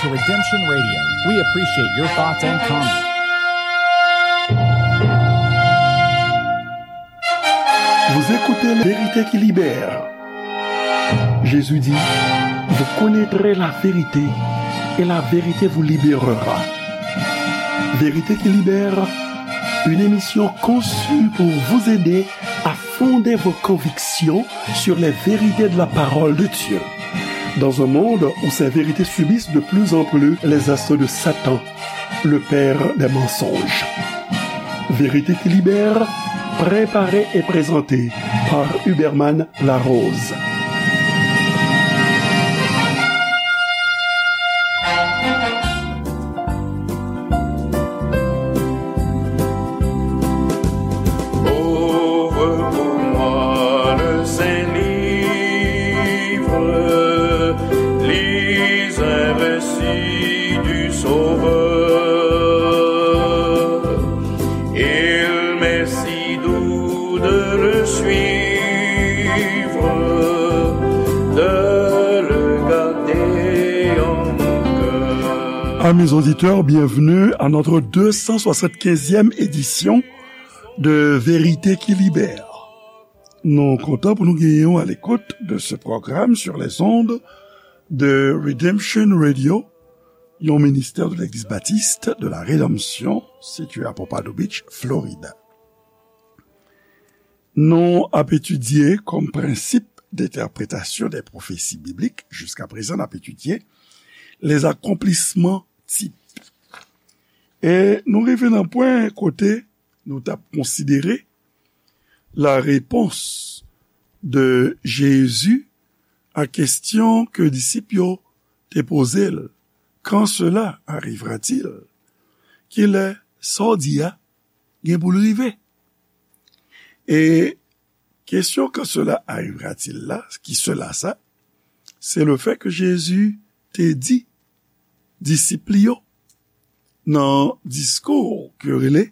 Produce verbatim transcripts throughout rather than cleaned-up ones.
Redemption Radio. We appreciate your thoughts and comments. Vous écoutez La Vérité qui libère. Jésus dit, vous connaîtrez la vérité et la vérité vous libérera. Vérité qui libère, une émission conçue pour vous aider à fonder vos convictions sur les vérités de la parole de Dieu. Dans un monde où ces vérités subissent de plus en plus les assauts de Satan, le père des mensonges. Vérité qui libère, préparée et présentée par Huberman Larose. Ouvre pour moi le Saint Livre, lis un récit du Sauveur. Il m'est si doux de le suivre, de le garder en mon cœur. Amis auditeurs, bienvenue à notre deux cent soixante-quinzième édition de Vérité qui libère. Nou kontan pou nou genyen w à l'écoute de ce programme sur les ondes de Redemption Radio, yon ministère de l'Église baptiste de la Rédemption, situé à Pompano Beach, Florida. Nou ap etidye kòm prensip de entèpretasyon de pwofesi biblik, jiska prezan n ap etidye les accomplissements types. E nou rive nan pwen kote nou t ap konsidere la réponse de Jésus à question ke disip yo te poze l, quand cela arrivera-t-il? Kilè sa w di a gen pou l rive? E kesyon quand cela arrivera-t-il la, ki cela sa, se le fait que Jésus te di disip li yo nan diskou ke yo rele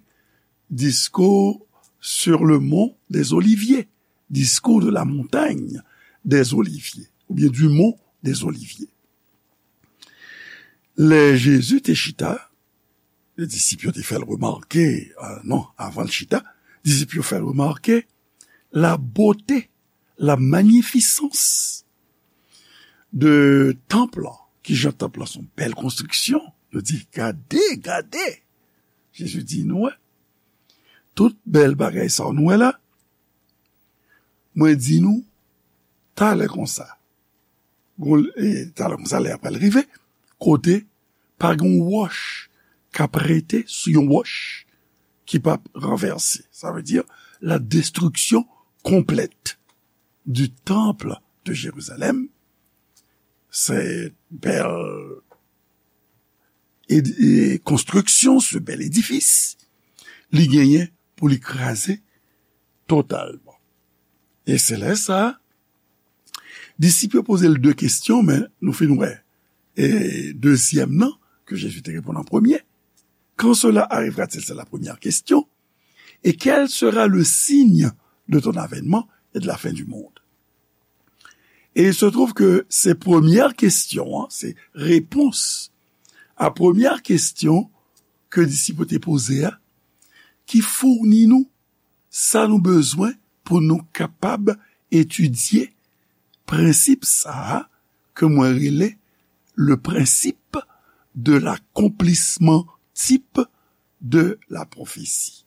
diskou sur le mont des Oliviers, diskou de la montagne des Oliviers, oubyen du mont des Oliviers. Lè Jezi te chita, disip yo te fè l remake, euh, non, avan l chita, disip yo fè l remake la bote, la magnificence de tanp lan. Kijan tanp lan se yon bèl konstriksyon. Yo di, gade, gade. Jezi di, nou wè, tout bèl bagay sa nou wè la, mwen di nou, talè konsa, gon, e, talè konsa, lè a pral rive, kote pa gen yon wòch k ap rete sou yon wòch ki p ap ranvèse. Sa vle di la destruction complète du temple de Jérusalem. Se bèl edi-, e, konstriksyon, se bèl edifis, li genyen pou li kraze totalman. E se lè sa, disip yo poze l de kesyon, men nou fin wè, e, dezyèm nan, ke Jezi te reponn an premye. Quand cela arrivera-t-il? C'est la première question. Et quel sera le signe de ton avènement et de la fin du monde? Et il se trouve que se premyè kesyon an, se repons a premyè kesyon ke disip yo te poze a, ki founi nou sa nou bezwen pou nou kapab etidye prensip sa a ke mwen rele le principe de l'accomplissement type de la prophétie.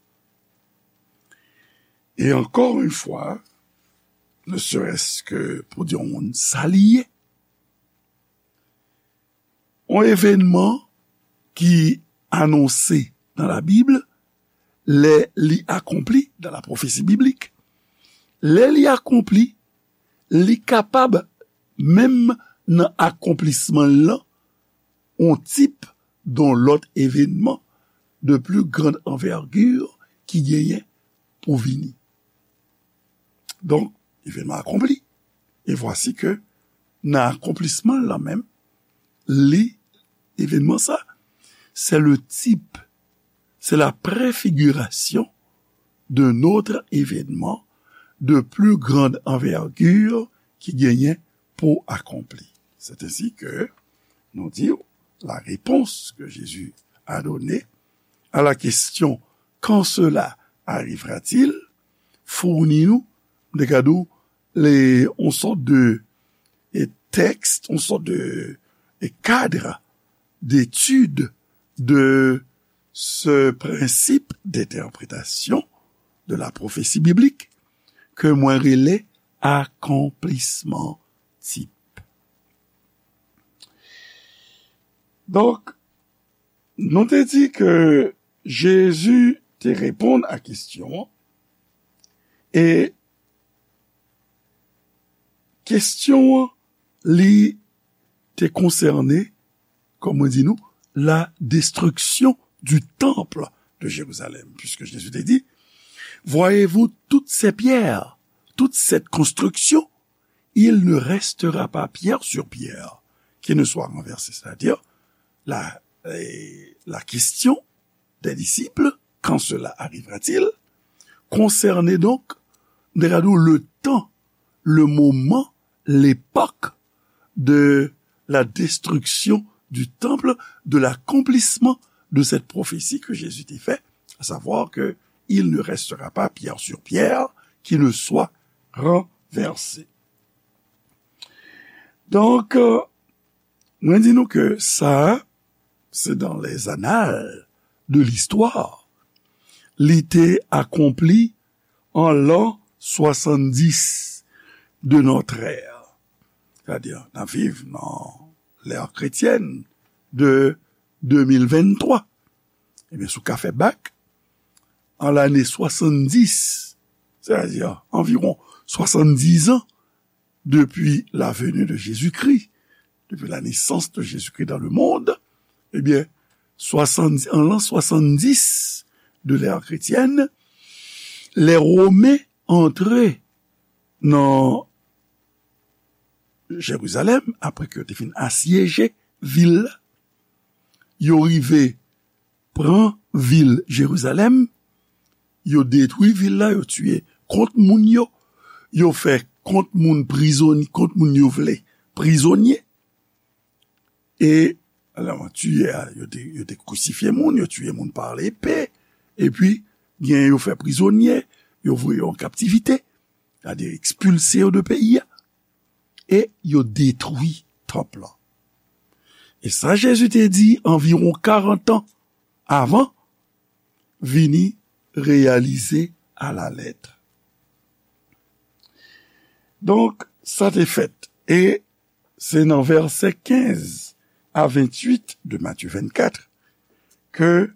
Et encore une fois, ne serait-ce que pou di yon moun sa li ye, yon evènman ki anonse nan Labib, lè li akonpli, dans la prophétie biblique, lè li akonpli, li kapab, menm nan akonplisman l lan, yon tip de yon lòt evènman de plus grande envergure ki genyen pou vini. Donk, evènman akonpli. E vwasi ke nan akonplisman l lan menm, li, evènman sa, c'est le type, c'est la préfiguration d'un autre événement de plus grande envergure ki genyen pou akonpli. C'est ainsi que nou di, la réponse que Jésus a donnée à la question quand cela arrivera-t-il, founi nou, m te ka di w, le, yon sòt de, e, tèks, yon sòt de, e, kad d'étude de ce principe d'interprétation de la prophétie biblique ke mwen rele akonplisman tip. Donk, nou te di ke Jezi te reponn a kesyon an, e kesyon an, li te konsène, kòm mwen di nou, la destruction du temple de Jérusalem, puisque Jésus te di, voyez-vous toutes ces pierres, toute cette construction, il ne restera pas pierre sur pierre qui ne soit renversée. C'est-à-dire, la, eh, la question des disciples, quand cela arrivera-t-il, concernait donc, regardons le temps, le moment, l'époque de la destruction du temple, de l'accomplissement de cette prophétie que Jésus te fait, à savoir que il ne restera pas pierre sur pierre qui ne soit renversée. Donk, euh, mwen di nou ke sa, se dans les annales de l'histoire, li te akonpli an l'an soixante-dix de notre ère. Sètadi, n ap viv nan l'ère chrétienne de deux mille vingt-trois. Ebyen, si w ka fè bak, an lane soixante-dix, c'est-à-dire environ soixante-dix ans depuis la venue de Jésus-Christ, depuis la naissance de Jésus-Christ dans le monde, ebyen, soixante, an l'an soixante-dix de l'ère chrétienne, les Romains antre nan Jerizalèm, apre ke yo te fin asyeje vil la, yo rive pran vil Jerizalèm, yo detwi vil la, yo tiye kont moun yo, yo fè kont moun prizonye, kont moun yo vle prizonye. E, alò, tiye a, yo te, yo te krisifye moun, yo tiye moun pa lepe, epi, gen yo fè prizonye, yo voye yo an kaptivite, sètadi ekspilse yo de peyi a, e yo detwi tanp lan. E sa Jezi te di anviwon karant an avan, vini reyalize alalèt. Donk, sa te fèt. E se nan vèsè kenz a venntuit de Matye vennkat ke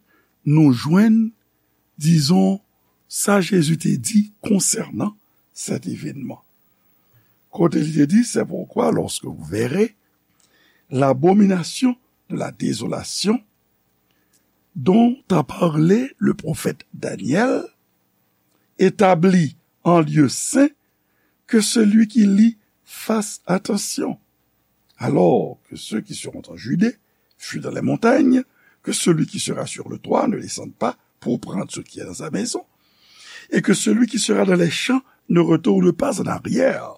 nou jwenn, dizon, sa Jezi te di konsènan cet événement. Kote li te di, c'est pourquoi, lorsque vous verrez l'abomination de la désolation dont a parlé le prophète Daniel, établie en lieu saint, que celui qui lit fasse attention. Alors que ceux qui seront en Judée fuient dans les montagnes, que celui qui sera sur le toit ne descende pas pour prendre ce qui est dans sa maison, et que celui qui sera dans les champs ne retourne pas en arrière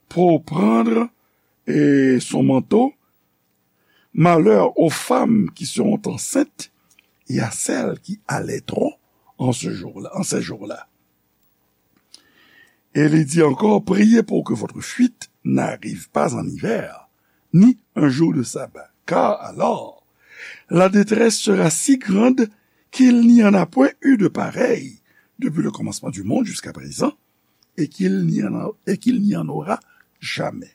pour prendre, eh, son manteau. Malheur aux femmes qui seront enceintes et à celles qui allaiteront en ce jour-là, en ces jours-là. Et il dit encore, priez pour que votre fuite n'arrive pas en hiver, ni un jour de sabbat, car alors la détresse sera si grande qu'il n'y en a point eu de pareil depuis le commencement du monde jusqu'à présent, et qu'il n'y en a, et qu'il n'y en aura jamais.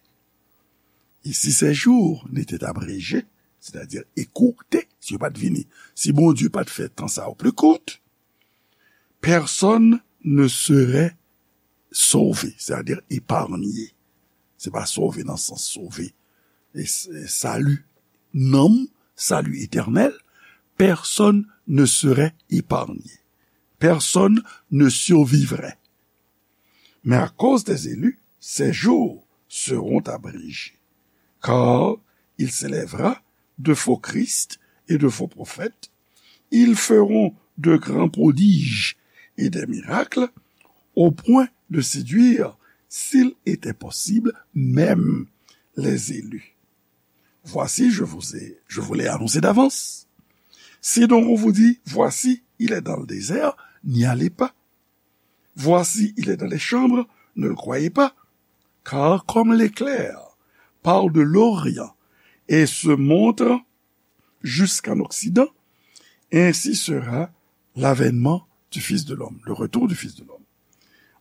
Et si ces jours n'étaient abrégés, c'est-à-dire écourtés, si yo pa t vini, si Bondye pa t fè tan sa yo pli kout, personne ne serait sauvé, c'est-à-dire épargné. Se pa sove nan sans sove, e, e sali nanm, salut éternel, personne ne serait épargné. Personne ne survivrait. Mais à cause des élus, ces jours seront abrégés. Car il s'élèvera de faux Christ et de faux prophètes. Ils feront de grands prodiges et des miracles, au point de séduire, s'il était possible, même les élus. Voici, je vous ai, je vous l'ai annoncé d'avance. Si donc on vous dit, voici, il est dans le désert, n'y allez pas. Voici, il est dans les chambres, ne le croyez pas. Car comme l'éclair part de l'Orient et se montre jusqu'en Occident, ainsi sera l'avènement du Fils de l'homme, le retour du Fils de l'homme.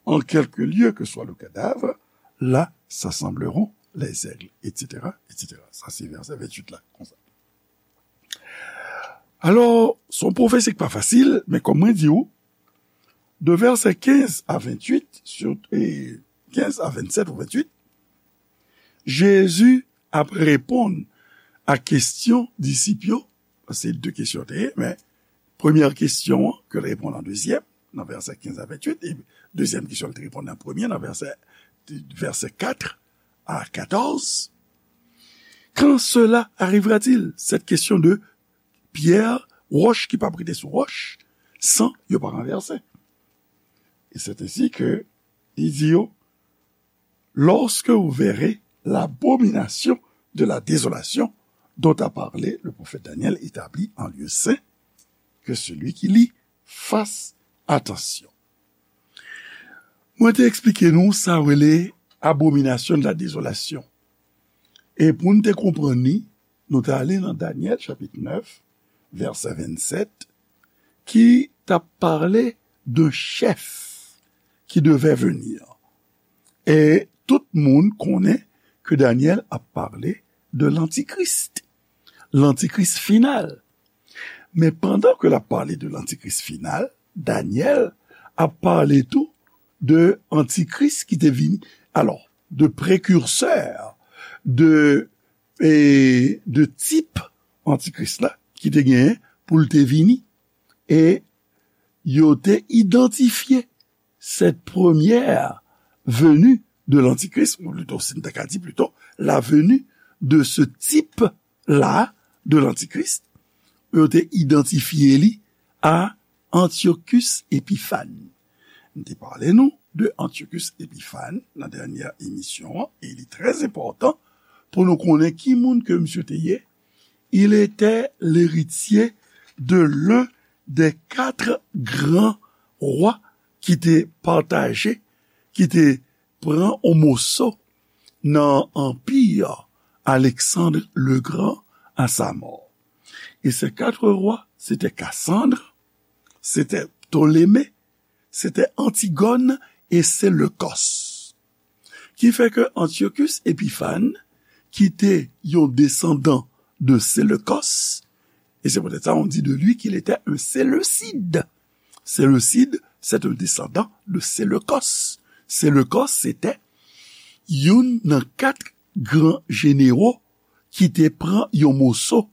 En quelque lieu que soit le cadavre, là s'assembleront les aigles, et cetera, et cetera. Sa se vèsè venntuit la, konsa. Alò, se yon pwofesi ki pa fasil, men kòm mwen di w, de vèsè kenz a venntuit, sou, e, kenz a vennsèt ou venntuit, Jezi ap reponn a kesyon disip yo, se de kesyon te ye, men premyè kesyon an, ke l reponn an dezyèm, nan vèsè kenz a venntuit, e dezyèm kesyon, l te reponn an premyè, nan vèsè, vèsè kat a katòz. Quand cela arrivera-t-il? Cette question de pierre, roche qui p ap rete sou roche, san yo pa ranvèse. Et c'est ainsi que il dit, lorsque vous verrez l'abomination de la désolation dont a parlé le prophète Daniel établie en lieu saint, que celui qui lit fasse attention. Mwen te eksplike nou sa rele abomination de la désolation. E pou n te konprann li, nou te ale nan Danyèl chapit nèf, vèsè vennsèt, ki t ap pale de chèf ki devè vini. E tout moun konnen ke Danyèl ap pale de lantikris, lantikris final. Men pandan ke l ap pale de lantikris final, Danyèl ap pale tou de antikris ki te vini. Alò, de prekirsè, de, e, de tip antikris la ki te genyen pou l te vini. E yo te idantifye cette première venue de l'antichrist, ou plito, si n ta ka di plito, la venue de ce type-là de l'antichrist, yo te idantifye li a Antiochus Epiphan. M te pale nou de Antiochus Epiphan nan dènyè emisyon an, e li trè enpòtan pou nou konnen ki moun ke misye te ye. Il était l'héritier de l'un des quatre grands rois ki te pataje, ki te pran yon moso nan anpi Alexandre le Grand à sa mort. Et ces quatre rois, c'était Cassandre, c'était Ptolémée, c'était Antigone et Séleucos. Ki fè ke Antiochus Epiphan, ki te yon desandan de Séleucos, et c'est peut-être ça on dit de lui qu'il était un séleucide. Séleucide, c'est un descendant de Séleucos. Séleucos, se te youn nan kat gran jenero ki te pran yon moso,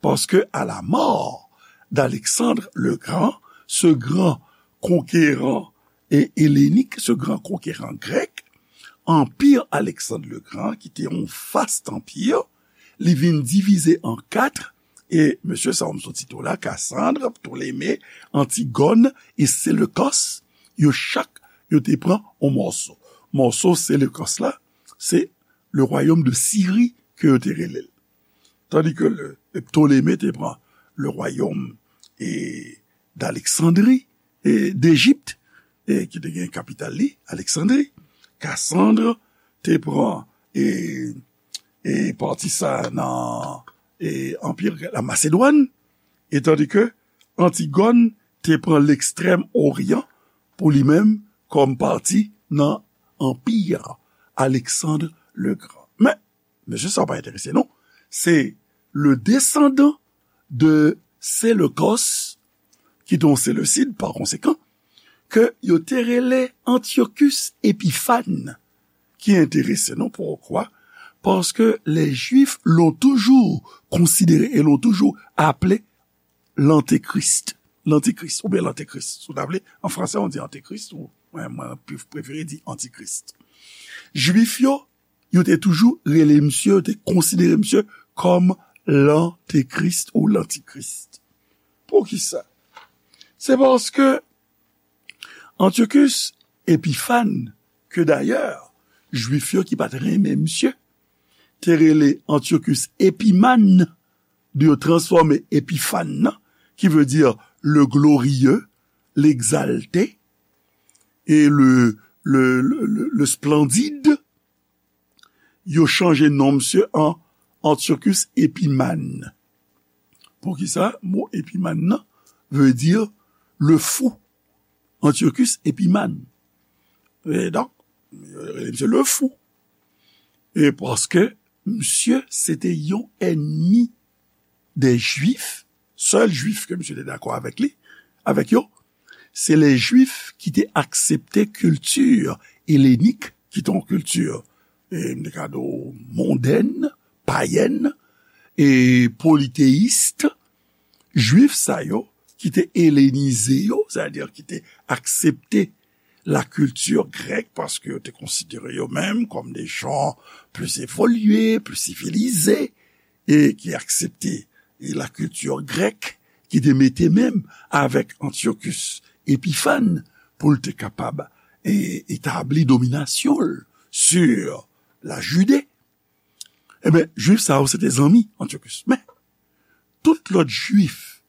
paske à la mort d'Alexandre le Grand, ce grand conquérant et hellénique, ce grand conquérant grec, anpi Alexandre le Grand, ki te yon vast anpi, li vin divize an kat, e mesye sa yo m sot site w la, Cassandre, Ptolémée, Antigone e Séleucos, yo chak, yo te pran yon mòso. Mòso Séleucos la, se le royaume de Syrie ke yo te rele l. Tandis que le, Ptolémée te pran le royaume e d'Alexandrie, e d'Égypte, e ki te gen kapital li, Alexandrie. Cassandre te pran e, e pati sa nan e anpi la Macédoine, e tandis que Antigone te pran l'Extrême Orient pou li menm kòm pati nan anpi Alexandre le Grand. Men, mesye sa pa enterese nou. Se le desandan de Séleucos, ki te yon séleucide, pa konsekan, ke yo te rele Antiochus Epiphan, ki enterese nou. Poukwa? Paske les Juifs l'ont toujours considéré et l'ont toujours appelé l'antéchrist. L'antéchrist, oubyen l'antéchrist. Si w ta vle, an fransè, on dit antéchrist, ou, mwen, mwen, prefere di antikris. Jwif yo, yo te toujou rele misye, yo te konsidere misye kòm lantekris ou lantikris. Poukisa? Se paske Antiochus Epiphan, ke dayè, Jwif yo ki pa t renmen misye, te rele Antiochus Epimane, de yo transfòme Epifane nan, ki vle di le glorieux, l'exalté, e le, le, le, le, le splendide, yo chanje non misye an Antiochus Epimane. Poukisa mo Epimane nan vle di le fou? Antiochus Epimane. E donk, yo rele misye le fou. E paske misye se te yon ènmi dè Jwif, sèl Jwif ke misye te dakò avèk li, avèk yo, se lè Jwif ki te aksepte kilti elenik, ki te yon kilti, e, m te ka di w, mondèn, payèn, e politeyis, Jwif sa yo ki te elenize yo, sètadi ki te aksepte la kilti grèk, paske yo te konsidere yo menm kòm de jan plis evolye, plis sivilize, e ki aksepte la kilti grèk, ki te mete menm avèk Antiochus Epifane pou l te kapab e, etabli dominasyon l sur la Jide. Ebyen, Jwif sa yo se te zanmi Antiochus. Men, tout lòt Jwif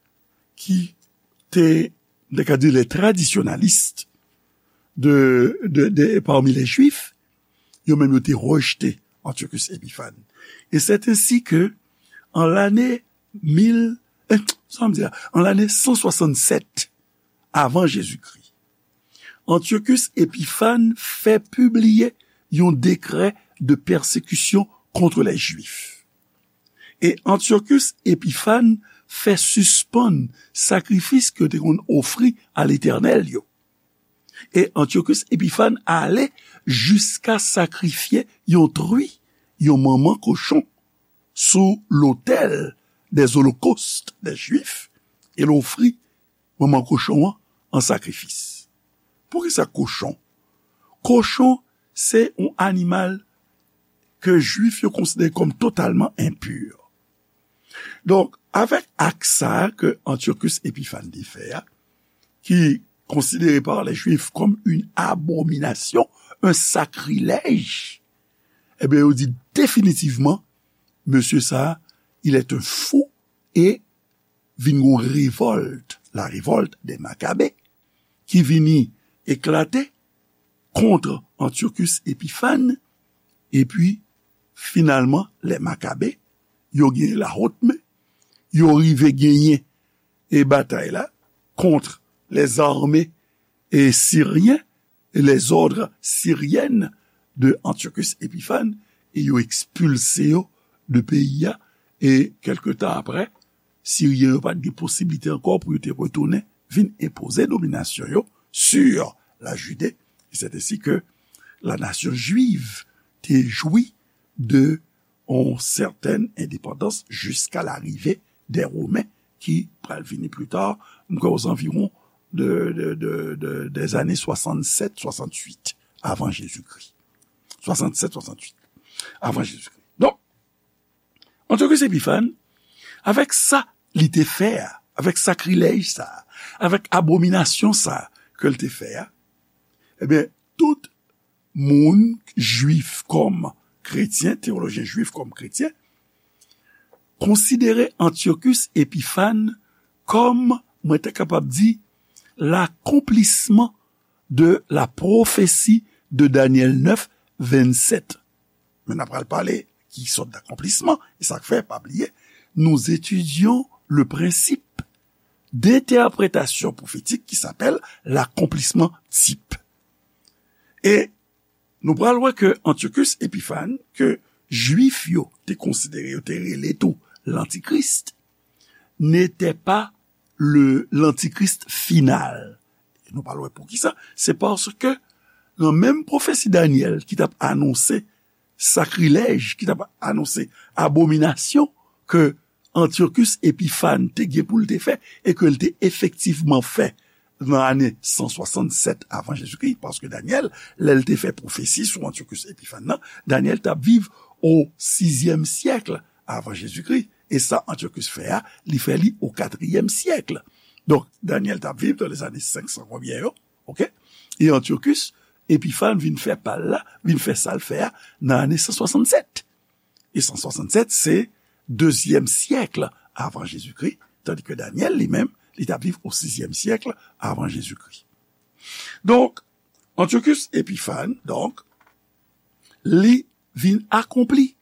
ki te, m te ka di, les traditionalistes de, de, de, parmi les Juifs, yo menm yo te rejte Antiochus Epifane. E c'est ainsi que, an lane mil, eh, sa m di la, an lane san swasannsèt avan Jezikri, Antiochus Epifane fè pibliye yon dekrè de pèsekisyon kont lè Jwif. E Antiochus Epifane fè sispann sakrifis ke yo te konn ofri a Letènèl yo. E Antiochus Epifane ale jiska sakrifye yon tri, yon manman kochon, sou lotèl des holocaustes des Juifs, e l ofri manman kochon an an sakrifis. Poukisa kochon? Kochon se yon animal ke Jwif yo konsidere kòm totalman enpi. Donk, avèk ak sa a ke Antiochus Epifane te fè a, ki konsidere par les Juifs comme une abomination, un sacrilège, ebyen, yo di definitivman, mesye sa a, il est un fou, e vin gon revòlt, la révolte des Maccabées, ki vini eklate kont Antiochus Epifane, epi, finalman, lè Makabe, yo genyen la haute main, yo rive genyen e batay la kont les armées e siryen, les ordres syriennes de Antiochus Epiphanes, e yo ekspilse yo de peyi a, e kèlke tan apre, Siryen yo pa t gen posiblite ankò pou yo te retounen vin enpoze dominasyon yo sur la Judée. E c'est ainsi que la nation juive te jwi de yon sètèn endepandans jiska larive dè Women ki pral vini pli ta, m kwè, aux environs de, de, de, de, des années soixante-sept, soixante-huit avan Jezikri. Soixante-sept, soixante-huit avan Jezikri. Donk, Antiochus Epiphanes, avèk sa li te fè a, avèk sakrilèj sa a, avèk abominasyon sa a ke l te fè a, ebyen, tout moun jwif kòm kretyen, teyolojyen jwif kòm kretyen, konsidere Antiochus Epiphanes kòm, mwen ta kapab di, l'accomplissement de la prophétie de Daniel neuf, vingt-sept. Men n ap pral pale ki sòt d'accomplissement, e sa k fè, pa bliye, nous étudions le principe d'interprétation prophétique qui s'appelle l'accomplissement type. E nou pral wè ke Antiochus Epiphanes, ke Jwif yo te konsidere, yo te rele tou l'Antichrist, n'était pas le, l'Antichrist final. E nou pral wè poukisa. Se paske nan menm pwofesi Danyèl ki t ap anonse sakrilèj, ki t ap anonse abominasyon ke Antiochus Epiphanes te gen pou l te fè e ke l te efektivman fè nan ane san swasannsèt avan Jezikri, paske Danyèl, lè l te fè pwofesi sou Antiochus Epiphanes nan, Danyèl t ap viv o sizyèm syèk avan Jezikri, e sa Antiochus fè a, li fè li o katriyèm syèk. Donk, Danyèl t ap viv dans les années cinq cents konbyen yo, oke? E Antiochus Epiphanes vin fè pa l la, vin fè sa l fè a nan ane san swasannsèt. e san swasannsèt, se dezyèm syèk avan Jezikri, tandi ke Danyèl, li menm, li t ap viv o sizyèm syèk avan Jezikri. Donk, Antiochus Epiphan, donk, li vin akonpli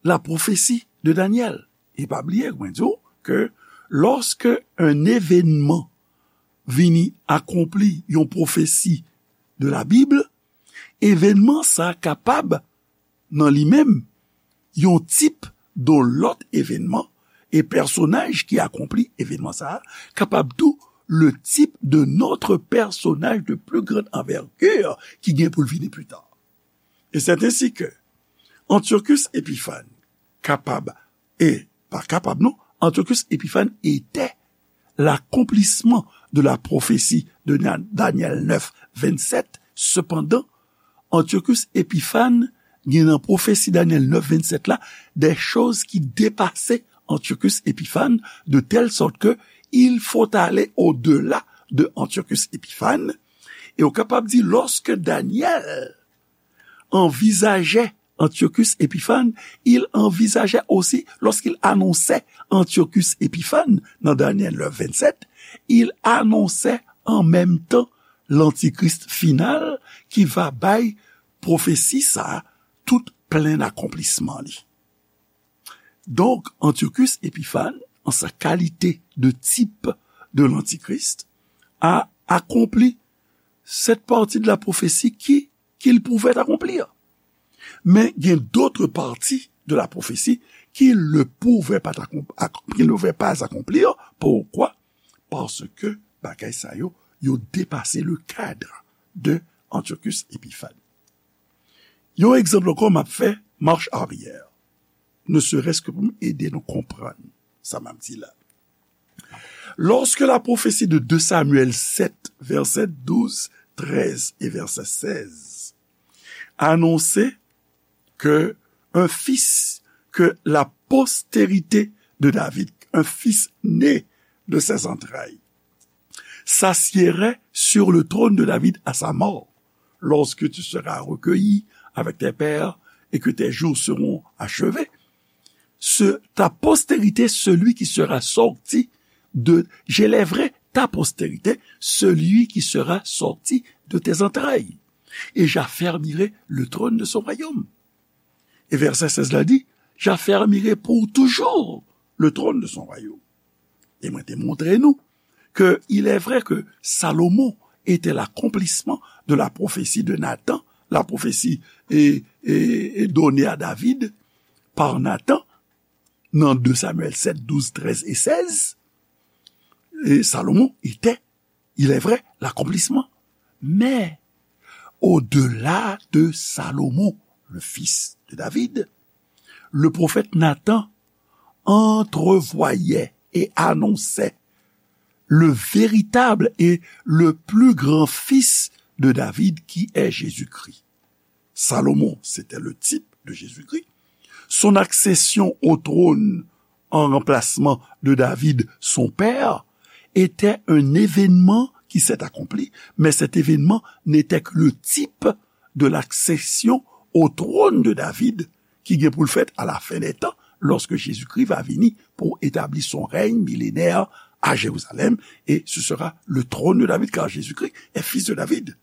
la pwofesi de Danyèl. E pa bliye, mwen di w ke lòske yon evènman vini akonpli yon pwofesi de la Bib, evènman sa a kapab, nan li menm, yon tip de lòt evènman, e pèsonaj ki akonpli evènman sa a kapab tou le type de notre personnage de plus grande envergure ki gen pou l vini pli ta. Et c'est ainsi que Antiochus Epiphan kapab, e pa kapab non, Antiochus Epiphan était l'accomplissement de la prophétie de Na- Daniel neuf, vingt-sept. Cependant, Antiochus Epiphan gen nan pwofesi Danyèl neuf, vingt-sept la, des choses qui dépassaient Antiochus Epiphan, de telle sorte que il faut aller au-delà de Antiochus Epiphan. E ou kapab di, lorsque Daniel envisageait Antiochus Epiphan, il envisageait aussi, lorsqu'il annonçait Antiochus Epiphan, dans Daniel neuf, vingt-sept, il annonçait en même temps l'antichrist final qui va bay pwofesi sa a tout plen akonplisman li. Donk, Antiochus Epiphan, en sa qualité de type de l'antichrist, a accompli cette partie de la prophétie qui, qu'il pouvait accomplir. Mais il y a d'autres parties de la prophétie qu'il ne pouvait pas, accom- ac- qu'il ne pouvait pas accomplir. Pourquoi? Parce que bagay sa yo, yo depase le cadre de Antiochus Epiphan. Yon egzanp ankò m ap fè, marche arrière. Ne serait-ce que pou m ede nou konprann sa m ap di la. Lorsque la prophétie de deux Samuel sept, verset douze, treize et verset seize, annonçait que un fils, que la postérité de David, un fils né de ses entrailles, s'assiérait sur le trône de David à sa mort, lorsque tu seras recueilli avec tes pères et que tes jours seront achevés. Ce, ta postérité, celui qui sera sorti de, j'élèverai ta postérité, celui qui sera sorti de tes entrailles, et j'affermirai le trône de son royaume. E vèsè sèz la di, j'affermirai pour toujours le trône de son royaume. E mwen te montre nou que il est vrai que Salomon était l'accomplissement de la prophétie de Nathan, la prophétie est, est, est donnée à David par Nathan dans deux Samuel sept, douze, treize et seize. Et Salomon était, il est vrai, l'accomplissement. Mais au-delà de Salomon, le fils de David, le prophète Nathan entrevoyait et annonçait le véritable et le plus grand fils de David, qui est Jésus-Christ. Salomon, c'était le type de Jésus-Christ. Son accession au trône en remplacement de David, son père, était un événement qui s'est accompli, mais cet événement n'était que le type de l'accession au trône de David ki gen pou l fèt à la fin des temps, lorsque Jésus-Christ va vini pour établir son règne millénaire à Jérusalem, et ce sera le trône de David, car Jésus-Christ est fils de David.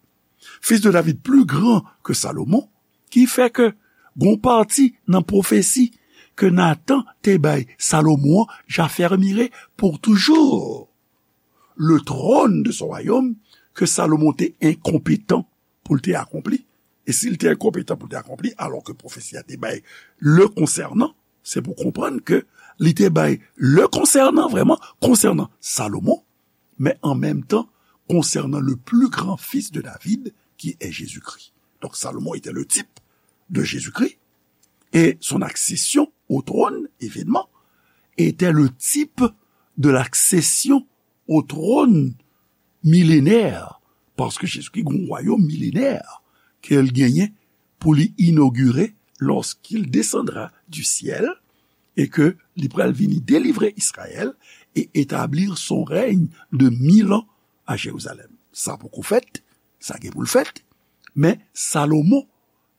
Fils de David plus grand que Salomon, ki fè ke gon pati nan pwofesi ke Nathan te bay Salomon an, j'affermirai pour toujours le trône de son royaume, ke Salomon te enkonpetan pou l te akonpli. E si l te enkonpetan pou l te akonpli, alò ke pwofesi a te bay le konsènan, se pou konprann ke li te bay le konsènan, vrèman, konsènan Salomon, mais en même temps, concernant le plus grand fils de David, qui est Jésus-Christ. Donc Salomon était le type de Jésus-Christ, et son accession au trône, événement, était le type de l'accession au trône millénaire, paske Jezikri gen yon wayòm milenè ke l genyen pou li inogire lorsqu'il descendra du ciel, et que li pral vini délivrer Israël et établir son règne de mille ans à Jérusalem. Sa poko fèt, sa gen pou l fèt, men Salomon,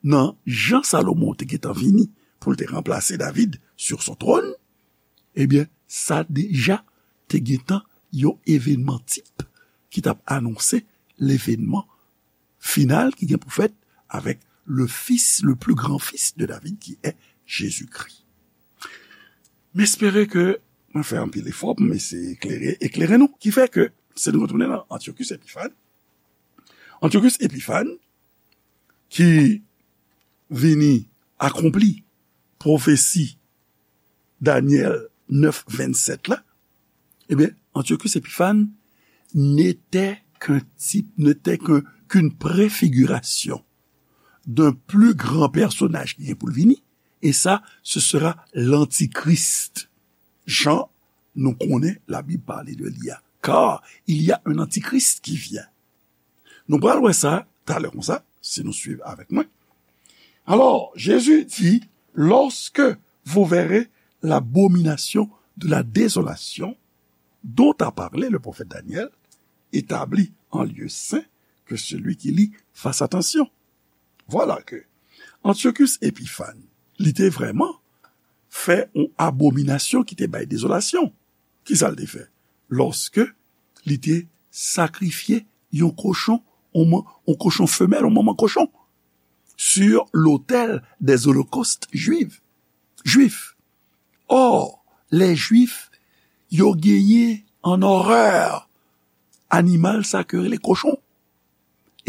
nan jan Salomon te gentan vini pou l te ranplase David sur son trône, ebyen, sa deja te gentan yon evènman tip ki t ap anonse levènman final ki gen pou fèt avèk le fils, le plus grand fils de David, qui est Jésus-Christ. M espere ke mwen fè anpil efò pou m eseye eklere, eklere nou, ki fè ke, si nou retounen nan Antiochus Epiphan, Antiochus Epiphan, ki vini akonpli pwofesi Danyèl nèf vennsèt la, ebyen, Antiochus Epiphan n'était qu'un type, n'était qu'un, qu'une préfiguration d'un plus grand personnage ki gen pou l vini, et ça, ce sera l'Antichrist. Jan nou konnen Labib pale de li a. Car il y a un antichrist qui vient. Nou pral wè sa talè konsa, si nou swiv avèk mwen. Alors, Jésus dit, lorsque vous verrez l'abomination de la désolation dont a parlé le prophète Daniel, établie en lieu saint, que celui qui lit fasse attention. Voilà que Antiochus Epiphan, li te vrèman fè yon abominasyon ki te bay dezolasyon. Kisa l te fè? Lòske li te sakrifye yon kochon, yon man-, yon kochon femèl, yon manman kochon, sur l'autel des holocaustes juifs, juifs. Or, les Juifs, yo genyen an orè animal sa ke rele kochon.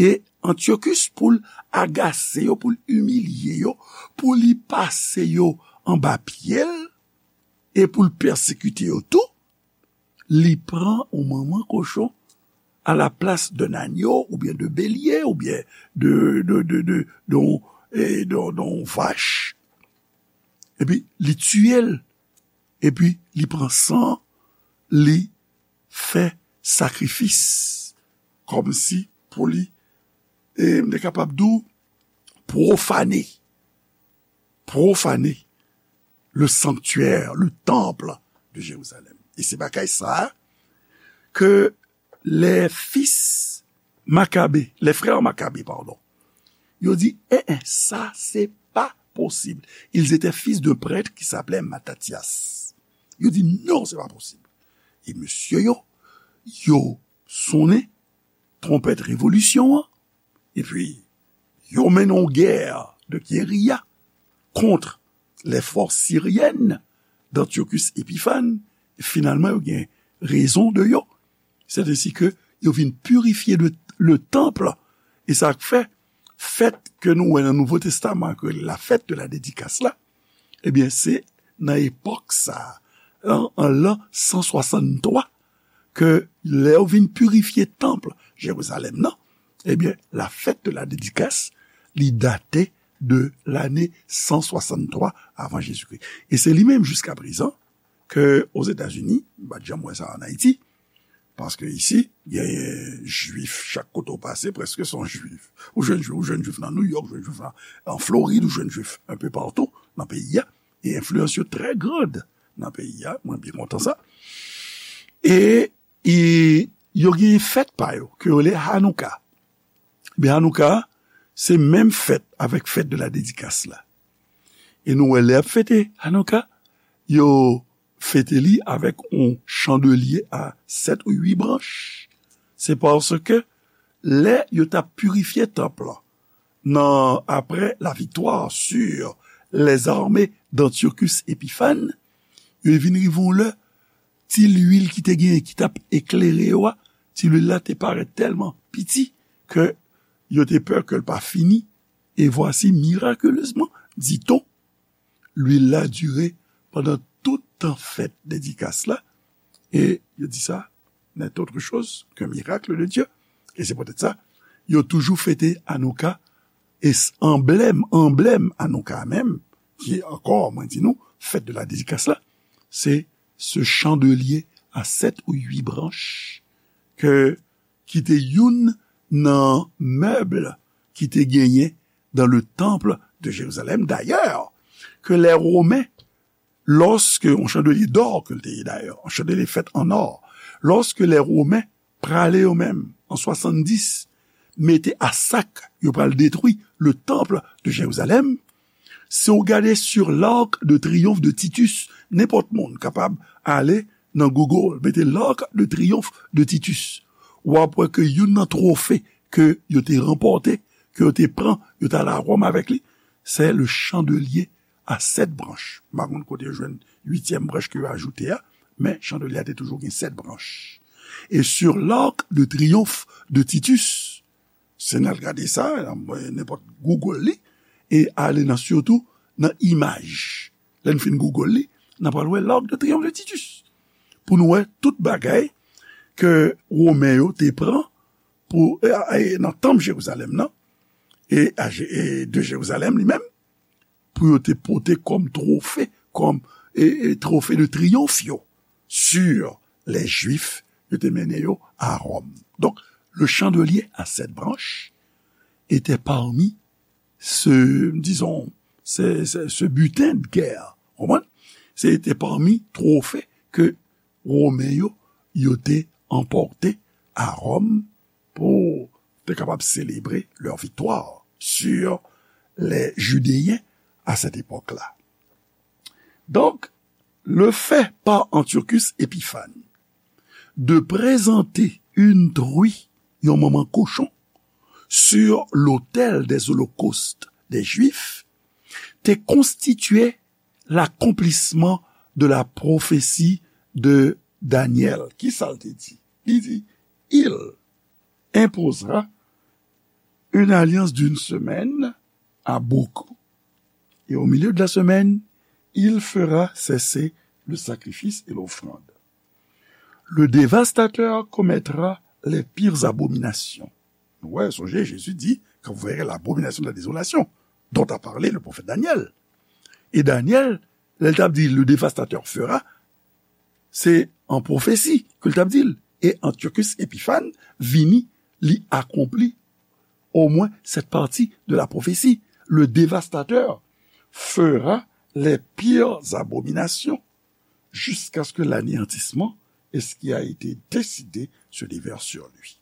E Antiochus, pou l agase yo, pou l imilye yo, pou li pase yo anba pye l, e pou l pèsekite yo tou, li pran yon manman kochon à la place d'un agneau, oubyen de bélier, oubyen de, de, de, de, de, e, de, de yon vach. Epi, li tiye l. Epi, li pran san, li fè sakrifis. Kòmsi pou li, e, m te kapab di w, pwofane. Pwofane le sanctuaire, le temple de Jérusalem. E se bagay sa a ke les fils Maccabée, les frères Maccabée, pardon, yo di, eh, eh, sa se pa posib. Ils étaient fils d'un prêtre qui s'appelait Mattathias. Yo di, non, se pa posib. E mesye yo, yo sonnen twonpèt revolisyon an, epi yo mennen yon gè de guérilla contre les forces syriennes d'Antiochus Épiphanes, e finalman, yo gen rezon de yo. C'est ainsi que yo vin pirifye le, le temple. E sa k fè, fèt ke nou wè nan Nouvo Testaman, ke la fête de la dédicace la, ebyen, se nan epòk sa, an, an lan san swasanntwa, ke lè yo vin pirifye tanp Jerizalèm nan, ebyen, la fête de la dédicace, li date de lane san swasanntwa avan Jezikri. E se li menm, jiska prezan, ke Ozetazini, m pa t janm wè sa ann Ayiti, paske isi, genyen jwif, chak kote w pase, prèske se yon jwif. Ou jwenn jwif, ou jwenn jwif nan Nouyòk, ou jwenn jwif nan, an Florid, ou jwenn jwif enpe patou nan peyi a. E enfliyans yo trè grand nan peyi a, mwen byen kontan sa. E, e yo gen fèt pa yo, ke yo rele Hanouka. Ebyen, Hanouka, se menm fèt avèk fête de la dédicace la. E nou wè lè y ap fete Hanouka, yo fete li avèk yon chandelye a sèt ou uit branch. Se paske lè yo t ap pirifye tanp lan, nan, après la victoire sur les armées d'Antiochus Épiphanes, yo vin rive yon lè, ti lwil ki te genyen, ki t ap eklere yo a, ti lwil la te parèt tèlman piti ke yo te pè ke l pa fini. E vwasi, miraculezman, dit-on, lwil la dire pandan tout tan fèt dedikas la, e yo di sa, n'est autre chose qu'un miracle de Dieu. E se poutèt sa, yo toujou fete Anouka, e s-, anblèm, anblèm Anouka menm, ki ankò, mwen di nou, fête de la dédicace la, se ce chandelier à sept ou huit branches ke, ki te youn nan mèb ki te genyen dans le temple de Jérusalem. Dayè, ke lè Women, lòske, yon chandelier d'or ke l te ye dayè, yon chandelier fèt an or, lòske lè Women prale yo menm, an swasanndis, mete a sak, yo pral detwi le temple de Jérusalem, Si w gade Sur l'Arc de Triomphe de Titus, nenpòt moun kapab ale nan Google, mete L'Arc de Triomphe de Titus. W ap wè ke youn nan twofe ke yo te ranpòte, ke yo te pran, yo t ale a Wòm avèk li, se le chandelier à sept branches. M pa konn kote yo jwenn uityèm branch ke yo ajoute a, men chandelier a te toujou gen sèt branch. E Sur l'Arc de Triomphe de Titus, si n al gade sa, nan nenpòt Google li, e ale nan sitou nan imaj. Lè n fin Google li, n a pral wè L'Arc de Triomphe de Titus. Pou nou wè tout bagay ke Women yo te pran pou, e, e, nan tanp Jerizalèm nan, e, a Je- e de Jerizalèm li menm, pou yo te pote kòm twofe, kòm, e, e, twofe de triyonf yo, sur les Juifs, yo te mennen yo a Wòm. Donk, le chandelier à sept branches était parmi ce, disons, ce, ce, ce butin de guerre. Konprann? Se te pami twofe ke Women yo, yo te anpòte a Wòm pou te kapab selebre leur victoire sur les Judéens à cette époque-là. Donc, le fait par Antiochus Épiphane de présenter une truie, yon manman kochon, sur l'autel des holocaustes des Juifs, te konstitye l'accomplissement de la prophétie de Daniel. Ki sa l te di? Li di, il imposera une alliance d'une semaine à beaucoup, et au milieu de la semaine, il fera cesser le sacrifice et l'offrande. Le dévastateur commettra les pires abominations. Nou wè, sonje, Jezi di, quand vous verrez l'abomination de la désolation, dont a parlé le prophète Daniel. E Daniel, lè l t ap di, le dévastateur fera, se an pwofesi ke l t ap di l. E Antiochus Épiphane vini, li akonpli omwen cette partie de la prophétie. Le dévastateur fera les pires abominations jusqu'à ce que l'anéantissement et ce qui a été décidé se déverse sur lui.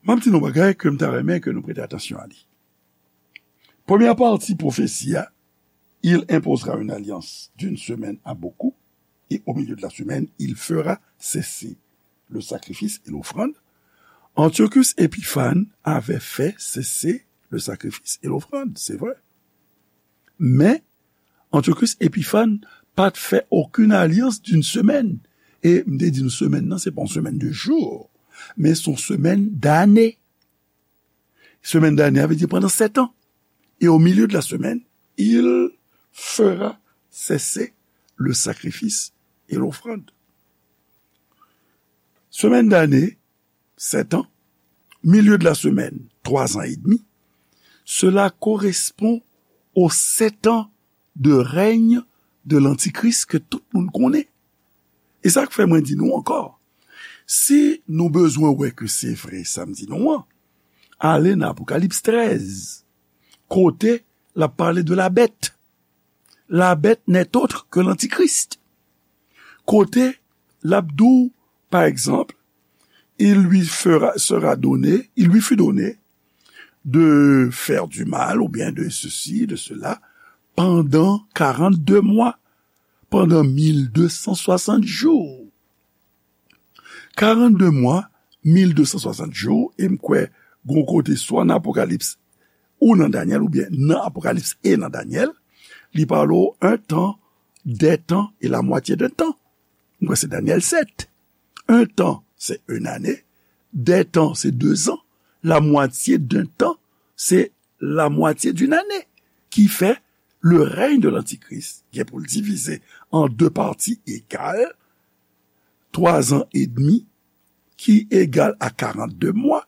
M ap di nou bagay ke m ta renmen ke nou prete atansyon a li. Premyè pati pwofesi a, il imposera une alliance d'une semaine à beaucoup, et au milieu de la semaine, il fera cesser le sacrifice et l'offrande. Antiochus Épiphane avait fait cesser le sacrifice et l'offrande, c'est vrai. Men, Antiochus Épiphane pa t fè okenn alyans d'une semaine. E m te di nou semèn nan, se pa yon semèn de jou, men se yon semèn dane. Semèn dane a vle di pandan sèt an. Et au milieu de la semaine, il fera cesser le sacrifice et l'offrande. Semèn dane, sèt an, milieu de la semaine, trois ans et demi, cela correspond aux sept ans de règne de l'Antichrist ke tout moun konnen. E sa k fè mwen di nou ankò, si nou bezwen wè ke se vre sa m di nou an, ale nan Apokalips trèz, kote l ap pale de la bèt. La bèt n'est autre que l'Antichrist. Kote l ap di w, pa egzanp, il lui fera, sera donné, il lui fut donné de faire du mal ou bien de ceci, de cela, pendant quarante-deux mois, pendant mil deux cent soixante jours. Quarante-deux mois, mil deux cent soixante jours, e m kwè gon kote swa nan Apokalips ou nan Danyèl, oubyen nan Apokalips e nan Danyèl, li pale w un temps, des temps et la moitié d'un temps. M kwè se Danyèl sèt. Un temps, c'est une année. Des temps, c'est deux ans. La moitié d'un temps, c'est la moitié d'une année. Ki fè, le règne de l'Antichrist gen pou l divize an de pati egal, twa zan edmi, ki egal a karannde mwa,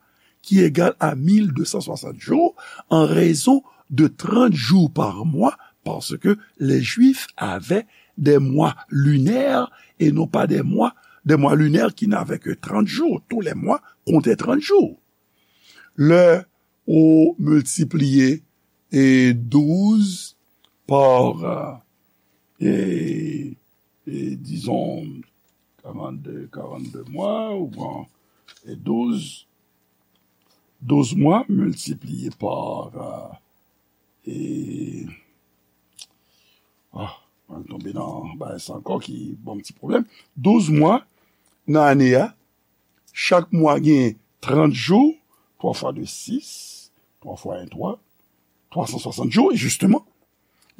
ki egal a mil de san swasant jou, an rezon de trant jou pa mwa, paske les Juifs avaient des mois lunaires et non pas des mois, des mois lunaires qui n'avaient que trente jours. Tous les mois comptaient trente jours. Lè ou miltipliye, e, douz pa, e, e, dizon, karannde, karannde mwa, ou pran, e, douz, douz mwa miltipliye pa, e, ah, mwen tonbe nan bagay sa ankò ki ban m ti pwoblèm. Douz mwa nan ane a, chak mwa gen trant jou, twa fwa de sis, twa fwa en twa, twa san swasant jou, e jisteman.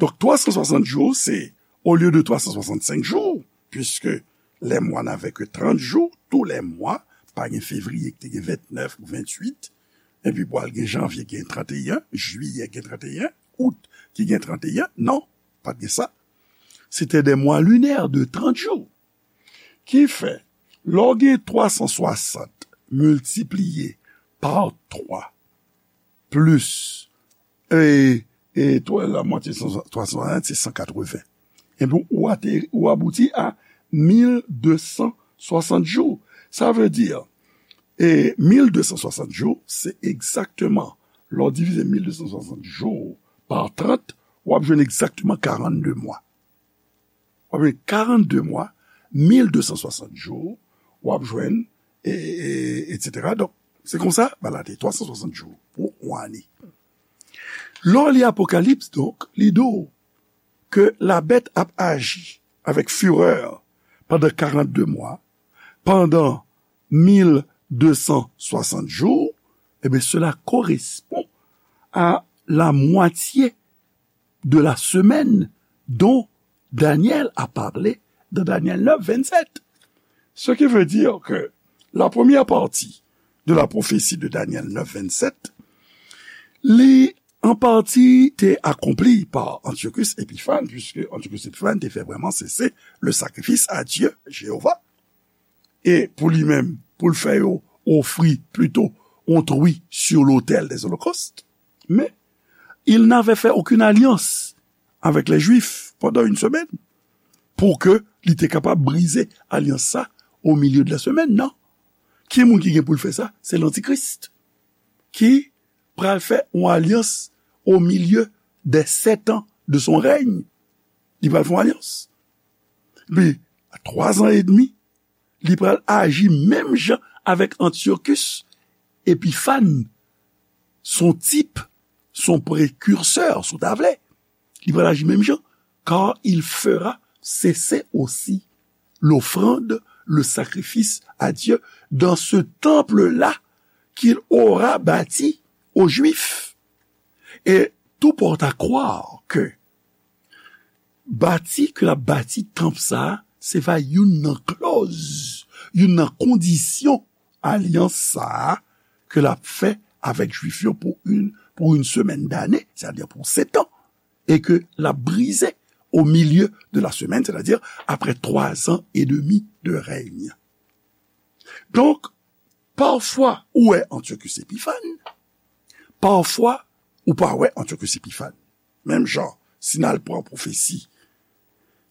Donk, twa san swasant jou, se, olye de twa san swasant senk jou, puiske les mois n'avaient que trente jours, tous les mois, pa gen fevriye ki te gen vennèf ou venntuit, epi pral gen janvye gen trannteyen, jiyè gen trannteyen, out ki gen trannteyen, non, pa t gen sa. C'était des mois lunaires de trente jours. Ki fè, lè w gen twa san swasant miltipliye pa twa plis, e, e twa, la mwatye twa san swasant, se san katreven. Epi ou ate, ou abouti a mil de san swasant jou. Sa vle di, e mil de san swasant jou, se egzakteman, lè w divize mil de san swasant jou pa trant, w ap jwenn egzakteman karannde mwa. W ap jwenn karannde mwa, mil de san swasant jou, w ap jwenn, e, e, etsetera. Donk, se konsa, bagay la te twa san swasant jou pou yon ane. Lè w li Apokalips, donk, li di w ke la bête ap aji avèk firè pandan karannde mwa, pandan mil de san swasant jou, eh bien, cela correspond à la moitié de la semaine dont Daniel a parlé dans Daniel neuf, vingt-sept. Ce qui veut dire que la première partie de la prophétie de Daniel neuf, vingt-sept, li an pati te akonpli pa Antiochus Epiphan, puisque Antiochus Epiphan te fè vrèman sese le sacrifice à Dieu, Jéhovah. E pou li menm, pou l fè yo ofri plito yon tri sur l'autel des holocaustes. Men, il n'avait fait aucune alliance avec les Juifs pendant une semaine pour que li te kapab brize alyans sa au milieu de la semaine, non. Ki moun ki gen pou l fè sa? Se lantikris ki pral fè yon alyans au milieu des sept ans de son règne. Li pral fè yon alyans. Epi, a twa zan edmi, li pral aji menm jan avèk Antiochus Epiphan. Son tip, son precurseur, si w ta vle. Li pral aji menm jan, car il fera cesser aussi l'offrande, le sacrifice à Dieu dans ce temple-là qu'il aura bâti aux Juifs. Et tout porte à croire que bati ke l ap bati tanp sa a, se va youn nan klòz, youn nan kondisyon alyans sa a ke l ap fè avèk Jwif yo pour une, pour une semaine d'année, c'est-à-dire pour sept ans, et que l ap brize au milieu de la semaine, c'est-à-dire après trois ans et demi de règne. Donk, pafwa ou wè Antiochus Epiphan, pafwa ou pa wè Antiochus Epiphan. Menm jan, si n al pran pwofesi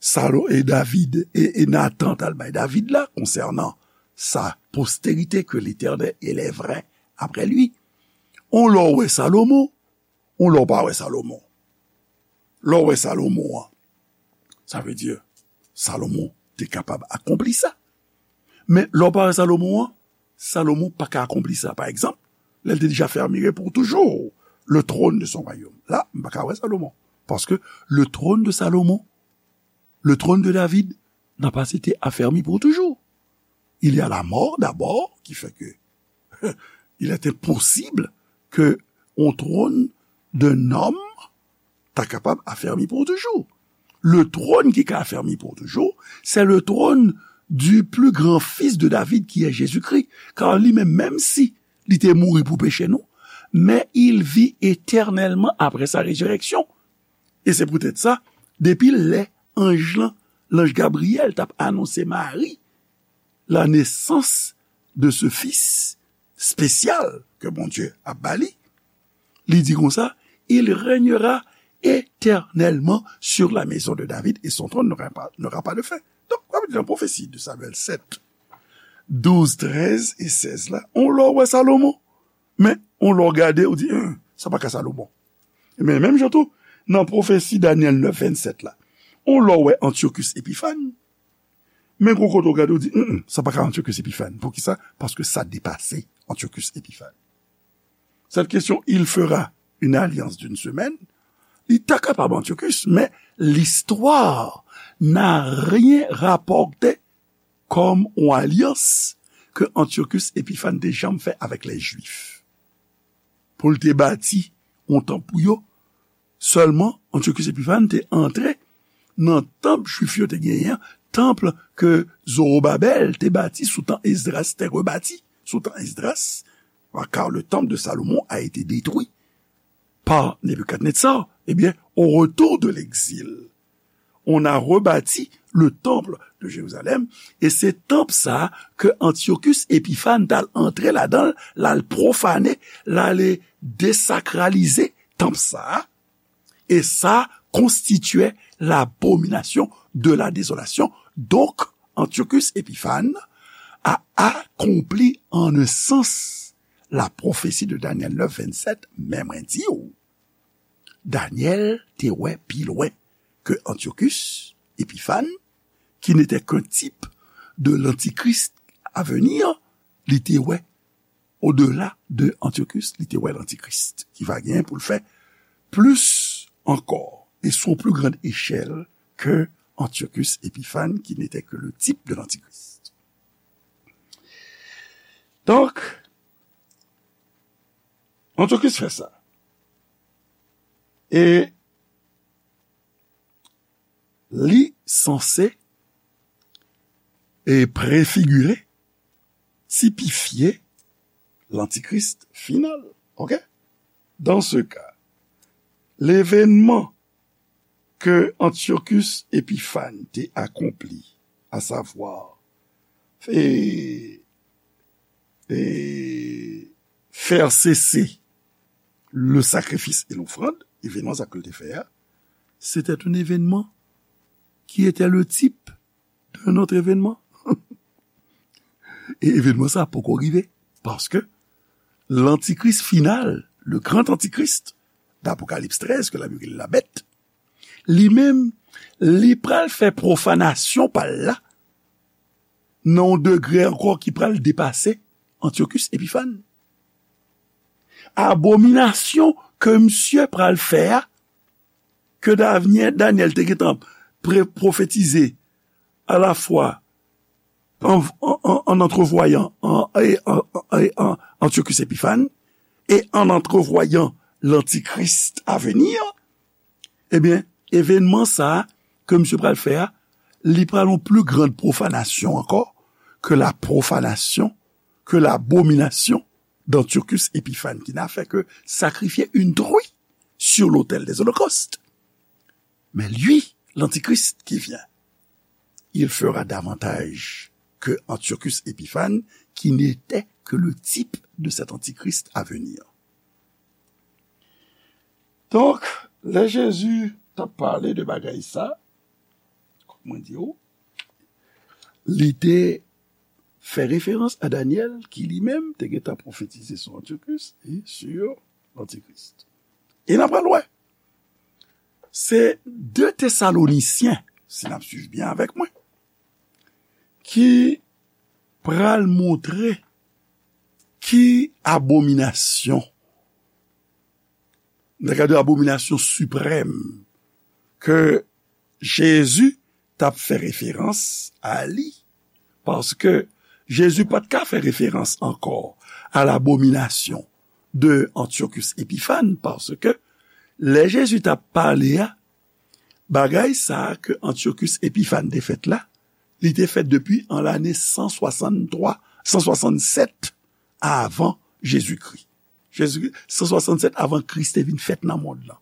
Salo-, e David, e, e Nathan t al bay David la, konsènan sa postérité que l'Éternel élèverait après lui. On lè w wè Salomon, on lè w pa wè Salomon. Lè w wè Salomon an, sa vle di, Salomon te kapab akonpli sa. Men lè w pa wè Salomon an, Salomon pa ka akonpli sa. Pa egzanp, lè l te deja fermire pour toujours le trône de son royaume. La, m pa ka wè Salomon. Paske le trône de Salomon, le trône de David, n'a pas été affermi pour toujours. Il y a la mort d'abord, qui fait que il est impossible que on trône d'un homme ta kapab afèmi pou toujou. Le trône ki ka afèmi pou toujou, c'est le trône du plus grand fils de David, qui est Jésus-Christ. Car li menm, menm si li te mouri pou peche nou, mais il vit éternellement après sa résurrection. E se poutèt sa, depi lè anj lan, l'ange Gabriel, t ap anonse Mari la naissance de ce fils spécial ke Bondye ap ba li, li di konsa, il régnera éternellement sur la maison de David et son trône n'aura pas, n'aura pas de fin. Donk, sa vle di nan pwofesi de Samyèl sèt, douz, trèz e sèz la, on lè w wè Salomon, men on lè w gade, ou di, "Hen, sa pa ka Salomon." Men menm jan tou, nan pwofesi Danyèl nèf vennsenk la, on lè w wè Antiochus Epiphan, men gon kote w gade, ou di, "Hen, sa pa ka Antiochus Epiphan." Poukisa? Paske sa depase Antiochus Epiphan. Cette question, il fera une alliance d'une semaine, Li ta kapab Antiochus, men listwa n'a rien rapporté comme yon alyans ke Antiochus Epifàn te janm fè avèk lè Jwif. Pou l te bati yon tanp pou yo, sèlman Antiochus Epifàn te antre nan tanp Jwif yo te genyen, tanp ke Zorobabèl te bati sou tan Esdras, te rebati sou tan Esdras, car le temple de Salomon a été détruit par Nebuchadnezzar, eh bien, au retour de l'exil, on a rebâti le temple de Jérusalem, e se tanp sa ke Antiochus Epifàn t al antre ladan l, l al pwofane, l ale desakralize tanp sa, e sa konstitye l'abomination de la désolation. Donk, Antiochus Epifàn a akonpli an un sans la prophétie de Daniel neuf, vingt-sept, men mwen di w, Daniel te wè pi lwen ke Antiochus Epifàn, qui n'était qu'un type de l'antichrist à venir, li te wè au-delà de Antiochus, li te wè lantikris ki va gen pou l fè plis ankò, e sou pli grann echèl ke Antiochus Epifàn, qui n'était que le type de l'antichrist. Donk, Antiochus fè sa. E li sanse e prefigire, tipifye lantikris final. Ok? Dans ce cas, l'événement que Antiochus Epiphanes te akonpli, à savoir, e, e, faire cesser le sacrifice et l'offrande, evènman sa ke l te fè a, c'était un événement qui était le type d'un autre événement. E evènman sa poko rive, paske lantikris final, le grand antichrist d'Apocalypse treize, ke Labib rele la bèt, li menm, li pral fè pwofanasyon pa l la, nan yon degre ankò ki pral depase Antiochus Epiphanes. Abominasyon ke misye pral fè a, ke Danyè-, Danyèl te gentan pre-, pwofetize alafwa an, an, an, an antrevwayan an, e, an, an, e, an Antiochus Epiphanes, e an antrevwayan lantikris a vini, ebyen, evènman sa a ke misye pral fè a, li pral yon pli grann pwofanasyon ankò ke la pwofanasyon, ke labominasyon d'Antiochus Epiphanes, qui n'a fait que sacrifier une truie sur l'autel des holocaustes. Mais lui, l'antichrist qui vient, il fera davantage que Antiochus Epiphanes, qui n'était que le type de cet antichrist à venir. Donk, lè Jezi t ap pale de bagay sa, kòm mwen di w, li te fè referans a Danyèl, ki li menm te gentan pwofetize sou Antiochus e sou lantikris. E n ap pral wè. Se de Tesalonisyen, si n ap swiv byen avèk mwen, ki pral montre ki abominasyon, nan kad de abominasyon siprèm, ke Jezi t ap fè referans a li, paske Jezi pa t ka fè referans ankò a labominasyon de Antiochus Epiphanes, paske lè Jezi t ap pale a, bagay sa a ke Antiochus Epiphanes te fèt la, li te fèt depi an lane san swasanntwa, san swasannsèt avan Jezikri. Jezikri, san swasannsèt avan Kris te vin fèt nan mond lan.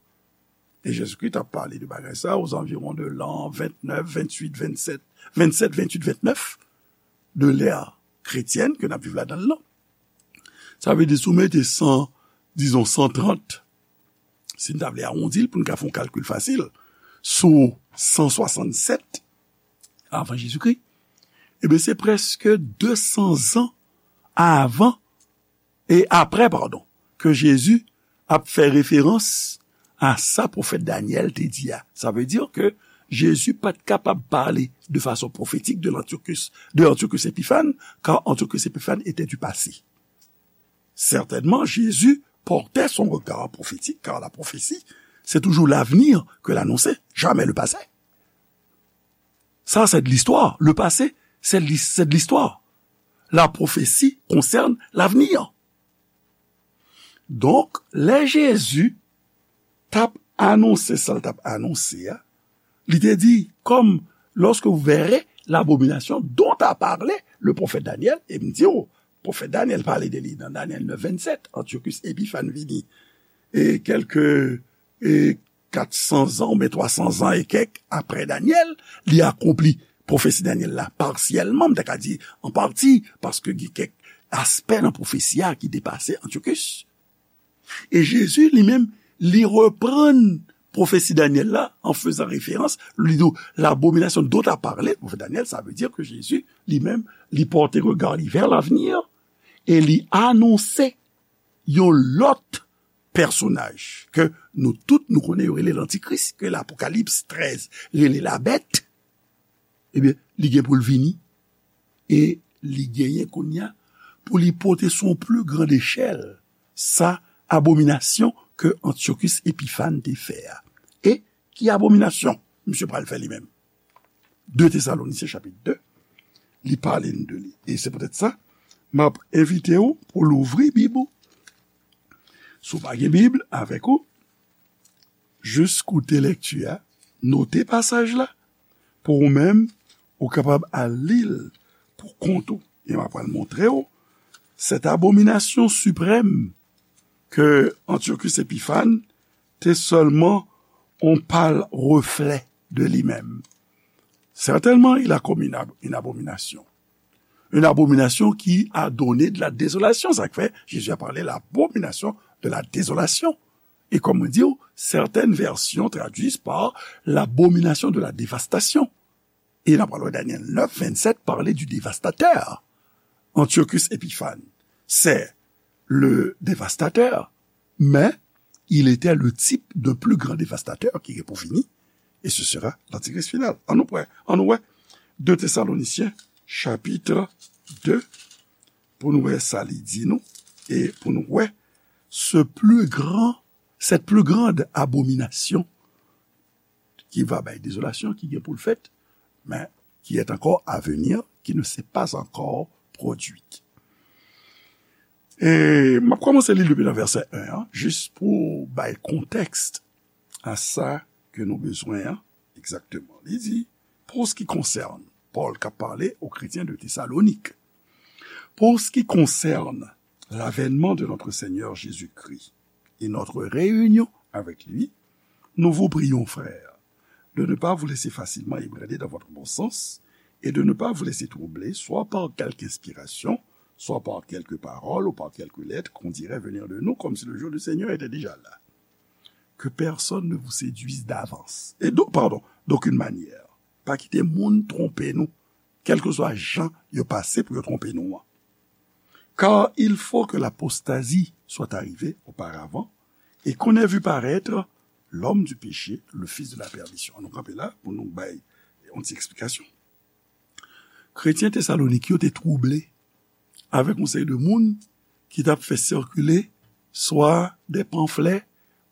E Jezikri t ap pale de bagay sa a aux environs de l'an vingt-neuf, vingt-huit, vingt-sept, vingt-sept, vingt-huit, vingt-neuf de l'ère chrétienne ke n ap viv ladan l lan. Sa vle di, si w mete san, dizon, san trant, si n ta vle awondi l pou n ka fè yon kalkil fasil, sou san swasannsèt avan Jezikri, ebyen, se prèske de san zan avan, e apre, padon, ke Jezi ap fè referans a sa pwofèt Danyèl te di a. Sa vle di ke Jezi pa t kapab pale de fason pwofetik de l'Antiochus, de Antiochus Epiphanes, car Antiochus Epiphanes était du passé. Certainement, Jésus portait son regard prophétique, car la prophétie C'est toujours l'avenir que l'annoncer, jamais le passé. Ça, c'est de l'histoire. Le passé, c'est de l'his- c'est de l'histoire. La prophétie concerne l'avenir. Donk, lè Jezi t ap anonse sa l t ap anonse a, li te di, comme lorsque vous verrez l'abomination dont a parlé le prophète Daniel, e m di w, pwofèt Danyèl pale de li nan Danyèl nèf vennsenk, Antiochus Epiphan vini, e kèlke, e kat san zan oubyen twa san zan e kèk apre Danyèl, li akonpli pwofesi Danyèl la pasyèlman, m ta ka di an pati, paske gen kèk aspè nan pwofesi a ki depase Antiochus. E Jezi li menm, li reprann pwofesi Danyèl la an fezan referans, li di, l'abomination dont a parlé le prophète Daniel, sa vle di ke Jezi li menm, li pòte rega li vè lavenir e li anonse yon lòt pèsonaj ke nou tout nou konnen yo rele lantikris, ke Lapokalips trèz rele labèt, ebyen, li gen pou l vini e li genyen kounye a pou li pote sou yon pli gran echèl sa abominasyon ke Antiochus Epiphan te fè a. E ki abominasyon misye pral fè li menm? De Tesalonisyen chapit de, li pale n de li. E se poutèt sa, m ap envite w pou louvri Bib ou. Si w pa gen Bib avèk ou, jis koute lèkti a, note pasaj la, pou ou menm, ou kapab al li l pou kont ou. E m ap pral montre w, cette abomination suprême que Antiochus Epiphan te sèlman on pâle reflet de li menm. Certainement, il a commis une ab- une abomination. Une abomination qui a donné de la désolation. Sa k fè, Jésus a parlé l'abomination de la désolation. E kòm mwen di w, certaines versions traduisent par l'abomination de la dévastation. E n ap pral wè Danyèl nèf vennsenk pale du dévastateur. Antiochus Epiphan, c'est le dévastateur, mais il était le type d'un plus grand dévastateur ki gen pou vini, et ce sera l'antichrist final. An nou prè, an nou wè de Tesalonisyen, chapit de, pou nou wè sa li di nou, e pou nou wè ce plus grand, cette plus grande abomination qui va bay désolation, ki gen pou l fèt, mais qui est encore à venir, qui ne s'est pas encore produite. E m ap kòmanse li depi nan vèsè en an, jis pou bay kontèks a sa ke nou bezwen an, egzakteman. Li di, pour ce qui concerne, Pòl k ap pale aux chrétiens de Thessalonique, pour ce qui concerne l'avènement de notre Seigneur Jésus-Christ et notre réunion avec lui, nous vous prions, frères, de ne pas vous laisser facilement ébranler dans votre bon sens et de ne pas vous laisser troubler, soit par quelque inspiration, soit par quelque parole ou par quelque lettre qu'on dirait venir de nous, comme si le jour du Seigneur était déjà là. Que personne ne vous séduise d'avance. Et donc, pardon, d'aucune manière. Pa kite moun twonpe nou, kèlkeswa jan yo pase pou yo twonpe nou an. Car il faut que l'apostasie soit arrivée auparavant, et qu'on ait vu paraître l'homme du péché, le fils de la perdition. Nou kanpe la pou nou bay yon ti eksplikasyon. Kretyen Tesalonik yo te twouble avèk yon seri de moun ki t ap fè sikile swa de panflè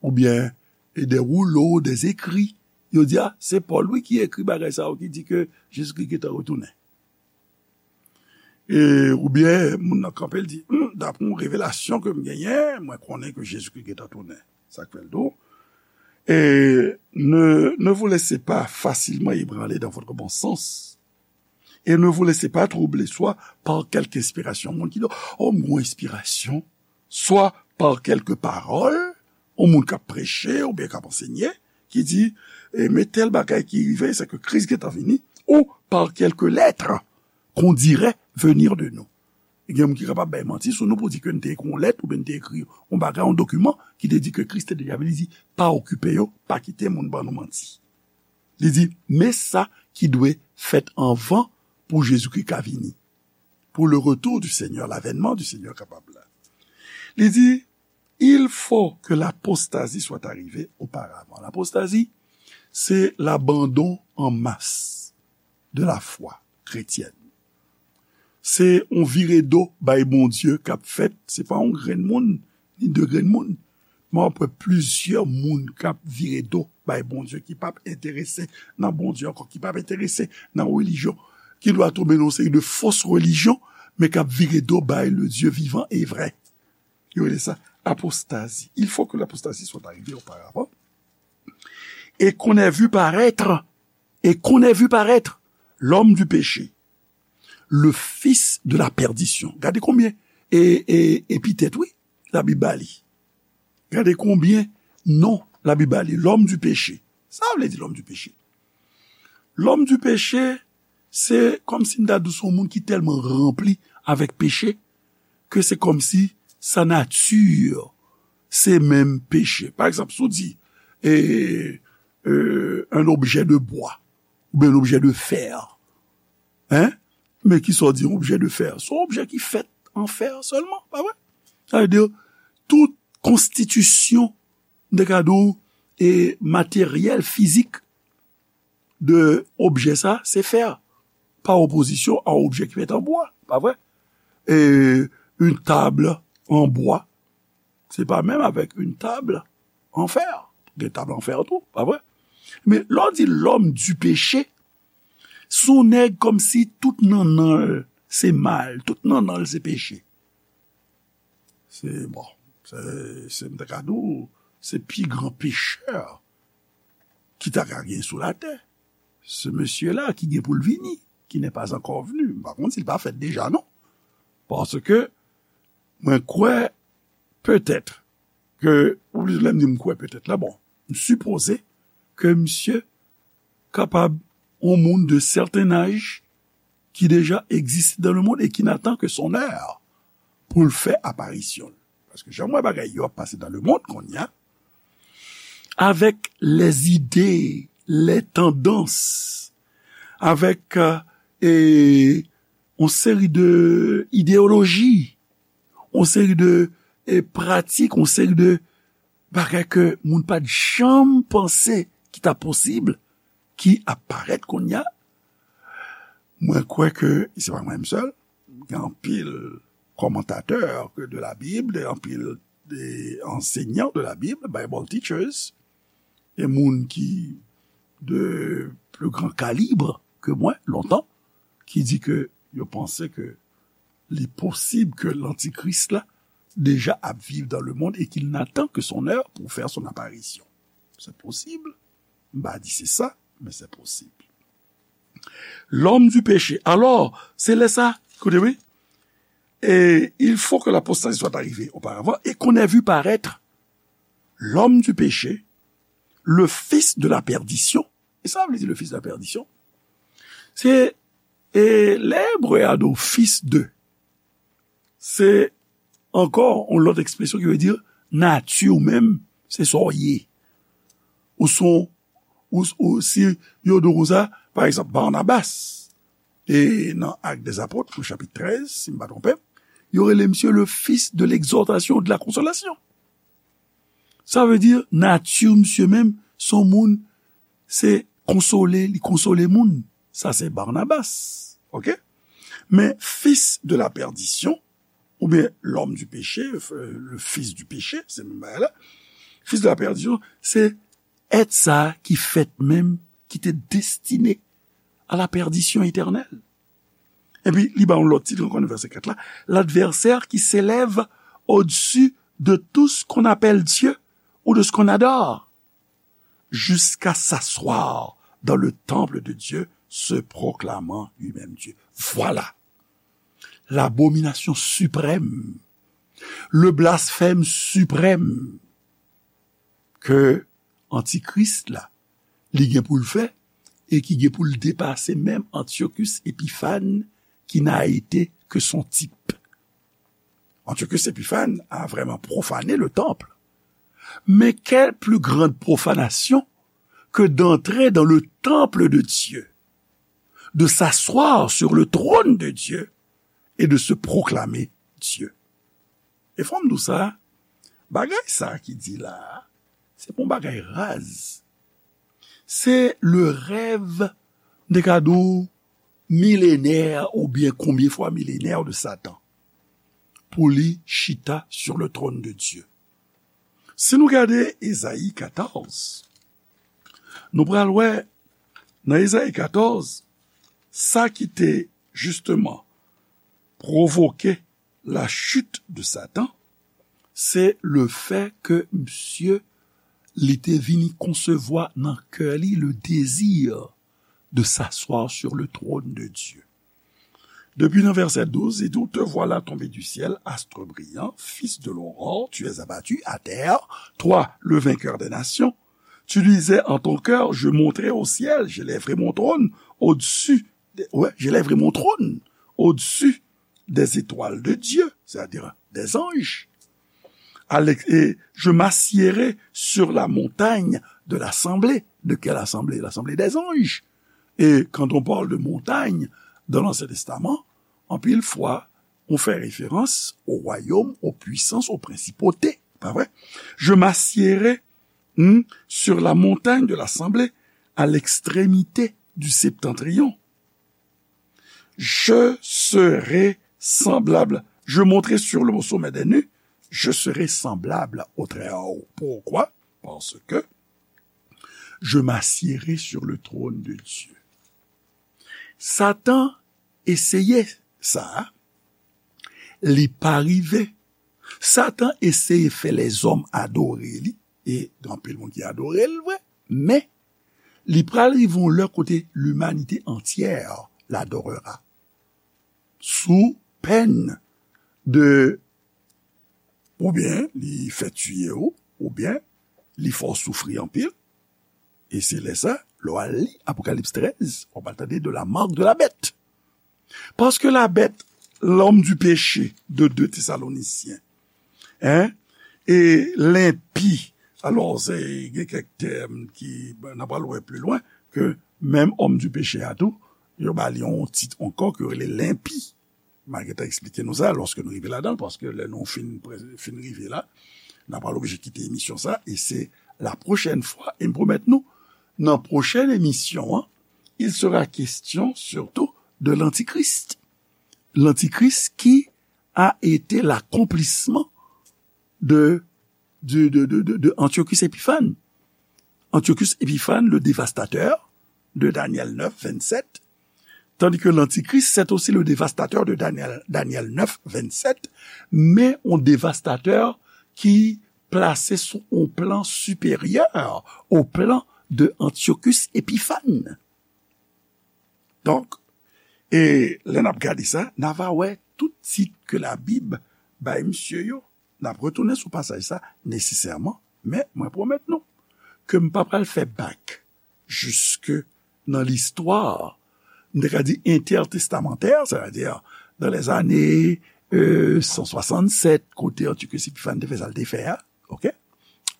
oubyen de woulo, de zekri. Yo di, a, se Pòl, wi, ki ekri bagay sa yo, ki di ke Jezikri gentan retounen. E, oubyen, moun nan kanpe, l di, hmm, dapre yon revelasyon ke m genyen, mwen konnen ke Jezikri gentan tounen. Sa k fè l di w, et ne, ne vous laissez pas facilement ébranler dans votre bon sens, et ne vous laissez pas troubler, soit par quelque inspiration, moun ki di, oh, m gon enspirasyon, soit par quelque parole, yon moun k ap preche oubyen k ap ansenye, ki di, e, men tèl bagay ki rive, se ke Kris gentan vini, ou par quelque lettre qu'on dirait venir de nous. Gen moun ki kapab bay manti sou nou pou di ke n te ekri yon lèt oubyen n te ekri yon bagay, yon dokiman ki te di ke Kris te deja vini. Li di, pa okipe yo, pa kite moun ban nou manti. Li di, men sa ki dwe fèt anvan pou Jezikri ka vini. Pour le retour du Seigneur, l'avènement du Seigneur kapab la. Li di, il faut que l'apostasie soit arrivée auparavant. L'apostasie, se l'abandon en masse de la foi chrétienne. Se yon vire do bay Bondye k ap fèt, se pa yon grenn moun, ni de grenn moun, Mwen ap wè plizyè moun k ap vire do bay Bondye, ki p ap enterese nan Bondye ankò, ki p ap enterese nan relijyon, ki dwa tonbe nan yon seri de fos relijyon, men k ap vire do bay le Dieu vivant et vrai. Yo rele sa apostazi. Il faut que l'apostasie soit arrivée auparavant. Et qu'on ait vu paraître, et qu'on ait vu paraître l'homme du péché, le fils de la perdition. Gade konbyen e, e, epitèt, wi, Labib ba li. Gade konbyen non Labib ba li, l'homme du péché. Sa vle di l'homme du péché? L'homme du péché, se kòmsi m ta di w se yon moun ki tèlman ranpli avèk peche ke se kòmsi sa nati se menm peche. Pa egzanp, si w di, e, e, un objet de bois, oubyen un objet de fer, hein? Men kisa w di, un objet de fer? Se yon objè ki fèt an fè sèlman, pa vre? Sa vle di, tout konstitisyon, m te ka di w, e materyèl, fizik de objè sa, se fè, pa opozisyon a yon objè ki fèt an bwa, pa vre? E une table en bois, se pa menm avèk une table en fer. Gen tab an fè tou, pa vre? Men lè w di l'homme du péché, se yon nèg kòmsi tout nannan l se mal, tout nannan l se peche. Se, bon, se, se, m ta ka di w, se pi gran pechè ki ta ka gen sou latè. Ce monsieur-là qui gen pou l vini, qui n'est pas encore venu. M pa konn si l pa fèt deja, non. Paske mwen kwè, petèt, ke, ou lè m di m kwè petèt la, bon, m sipoze ke misye kapab yon moun de certain âge ki deja existe dans le monde et qui n'attend que son heure pou l fè aparisyon l. Paske jan m wè bagay yo ap pase dans le monde kounye a, avec les idées, les tendances, avec, euh, e, yon seri de ideyoloji, yon seri de, e, pratik, yon seri de bagay ke moun pa t janm panse ki ta posib, ki ap parèt kounye a. Mwen kwè ke, se pa mwen menm sèl, gen anpil kòmantatè ke de la Bible, gen anpil de enseignants de la Bible, Bible teachers, e moun ki de plus grand calibre ke mwen, lontan, ki di ke yo panse ke li posib ke lantikris la deja ap viv dans le monde et qu'il n'attend que son heure pour faire son apparition. Se posib. M pa di se sa, men se posib. L'homme du péché. Alors, se lè sa, koute, wi. Et il faut que l'apostasie soit arrivée auparavant et qu'on ait vu paraître l'homme du péché, le fils de la perdition. E sa vle di le fils de la perdition? Se, e, lè ebre a di w fils de, se ankò yon lòt ekspresyon ki vle di nati w menm, se sa w ye. Ou se yon, ou, ou, si yo di w konsa, pa egzanp, Barnabas, e nan Actes des Apôtres, nan chapit trèz, si m pa twonpe m, yo rele misye le fils de l'exhortation, de la consolation. Sa vle di, nati misye menm, se yon moun, se konsole, li konsole moun. Sa se Barnabas, oke? Men fils de la perdition, oubyen l'homme du péché, euh, le fils du péché, se menm bagay la. Fils de la perdition, se èt sa ki fèt menm, ki te destine à la perdition éternelle. Epi, li ba yon lòt tit ankò nan vèsè kat la, l'adversaire qui s'élève au-dessus de tout ce qu'on appelle Dieu ou de ce qu'on adore, jusqu'à s'asseoir dans le temple de Dieu, se proclamant lui-même Dieu. Voilà l'abomination suprême, le blasphème suprême que antikris la, li gen pou l fè, e ki gen pou l depase menm Antiochus Epiphanes, qui n'a été que son type. Antiochus Epiphanes a vraiment profané le temple. Mais quelle plus grande profanation que d'entrer dans le temple de Dieu, de s'asseoir sur le trône de Dieu et de se proclamer Dieu. E fò m di w sa, bagay sa ki di la a, se pa yon bagay raz. Se le rèv, m te ka di w, milenè oubyen konbyen fwa milenè de Satan pou li chita sur le trône de Dieu. Si nou gade Ezayi katòz, nou pral wè nan Ezayi katòz, sa ki te jisteman pwovoke la chute de Satan, se le fè ke misye, li te vini konsevwa nan kè li le désir de s'asseoir sur le trône de Dieu. Depi nan vèsè douz, li di, te voilà tombé du ciel, astre brillant, fils de l'aurore, tu es abattu à terre, toi, le vainqueur des nations. Tu disais en ton cœur, je monterai au ciel, j'élèverai mon trône au-dessus, ouais, j'élèverai mon trône au-dessus des étoiles de Dieu, c'est-à-dire des anges. Alex, et je m'assiérai sur la montagne de l'assemblée. De quelle assemblée? L'assemblée des anges. Et quand on parle de montagne dans l'Ancien Testament, anpil fwa, on fait référence au royaume, aux puissances, aux principautés. Pas vrai? Je m'assiérai, hmm, sur la montagne de l'assemblée, à l'extrémité du septentrion. Je serai semblable. Je monterai sur le sommet des nues. Je serai semblable au Très-Haut. Pourquoi? Parce que je m'assiérai sur le trône de Dieu. Satan eseye sa, li pa rive. Satan eseye fè lèzòm adore li, e gen anpil moun ki adore l vre, men li pral rive yon lè kote limanite antyè l adorera. Sou pèn de, oubyen li fè tiye w, oubyen li fè w soufri anpil. E se lè sa, lè w al li Apokalips trèz, w ap al tande de la marque de la bête. Parce que la bête, l'homme du péché de deux Thessaloniciens, hein, et l'impie. Alò, se gen kèk tèm ki, n ap al wè pli lwen, ke menm homme du péché a tou, yo ba li yon tit ankò ke yo rele l'impi. M a gentan eksplike nou sa lòske nou rive ladan l, paske lè nou fin, fin rive la, n a pral oblije kite emisyon sa, e se la pwochèn fwa, e m pwomèt nou, nan pwochèn emisyon an, il sera question surtout de l'Antichrist. L'Antichrist qui a été l'accomplissement de, de, de, de, de, de Antiochus Épiphanes. Antiochus Épiphanes, le dévastateur de Daniel neuf, vingt-sept, tandis que l'Antichrist, c'est aussi le dévastateur de Daniel, Daniel neuf, vingt-sept, men yon dévastateur ki plase sou yon plan siperyè au plan de Antiochus Épiphanes. Donk, e lè n ap gade sa, n a va wè tout tit ke Labib bay misye yo. N ap retounen sou pasaj sa nesesèman, men mwen pwomèt nou ke m pa pral fè bak jiske nan listwa, m te ka di entètestamantè, sètadi dan lèzane, e, san swasannsèt, kote Antiochus Épiphanes te fè sa l te fè a, oke?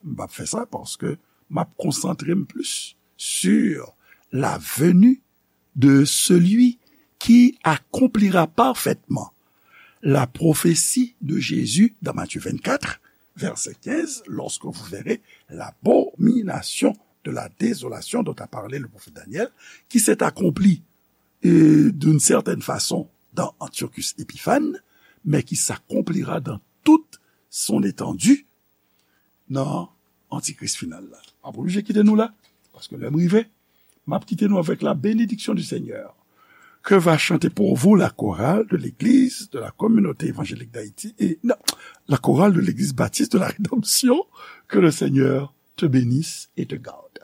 M p ap fè sa paske m ap konsantre m plis sur la venue de celui qui accomplira parfaitement la prophétie de Jésus dans Matthieu vingt-quatre, verset quinze, lorsque vous verrez l'abomination de la désolation dont a parlé le prophète Daniel, qui s'est accomplie, euh, d'une certaine façon dans Antiochus Épiphanes, mais qui s'accomplira dans toute son étendue nan Antikris final la. M ap oblije kite nou la, paske lè m rive, m ap kite nou avec la bénédiction du Seigneur. Que va chanter pour vous la chorale de l'église de la communauté évangélique d'Haïti et, non, la chorale de l'église baptiste de la rédemption. Que le Seigneur te bénisse et te garde.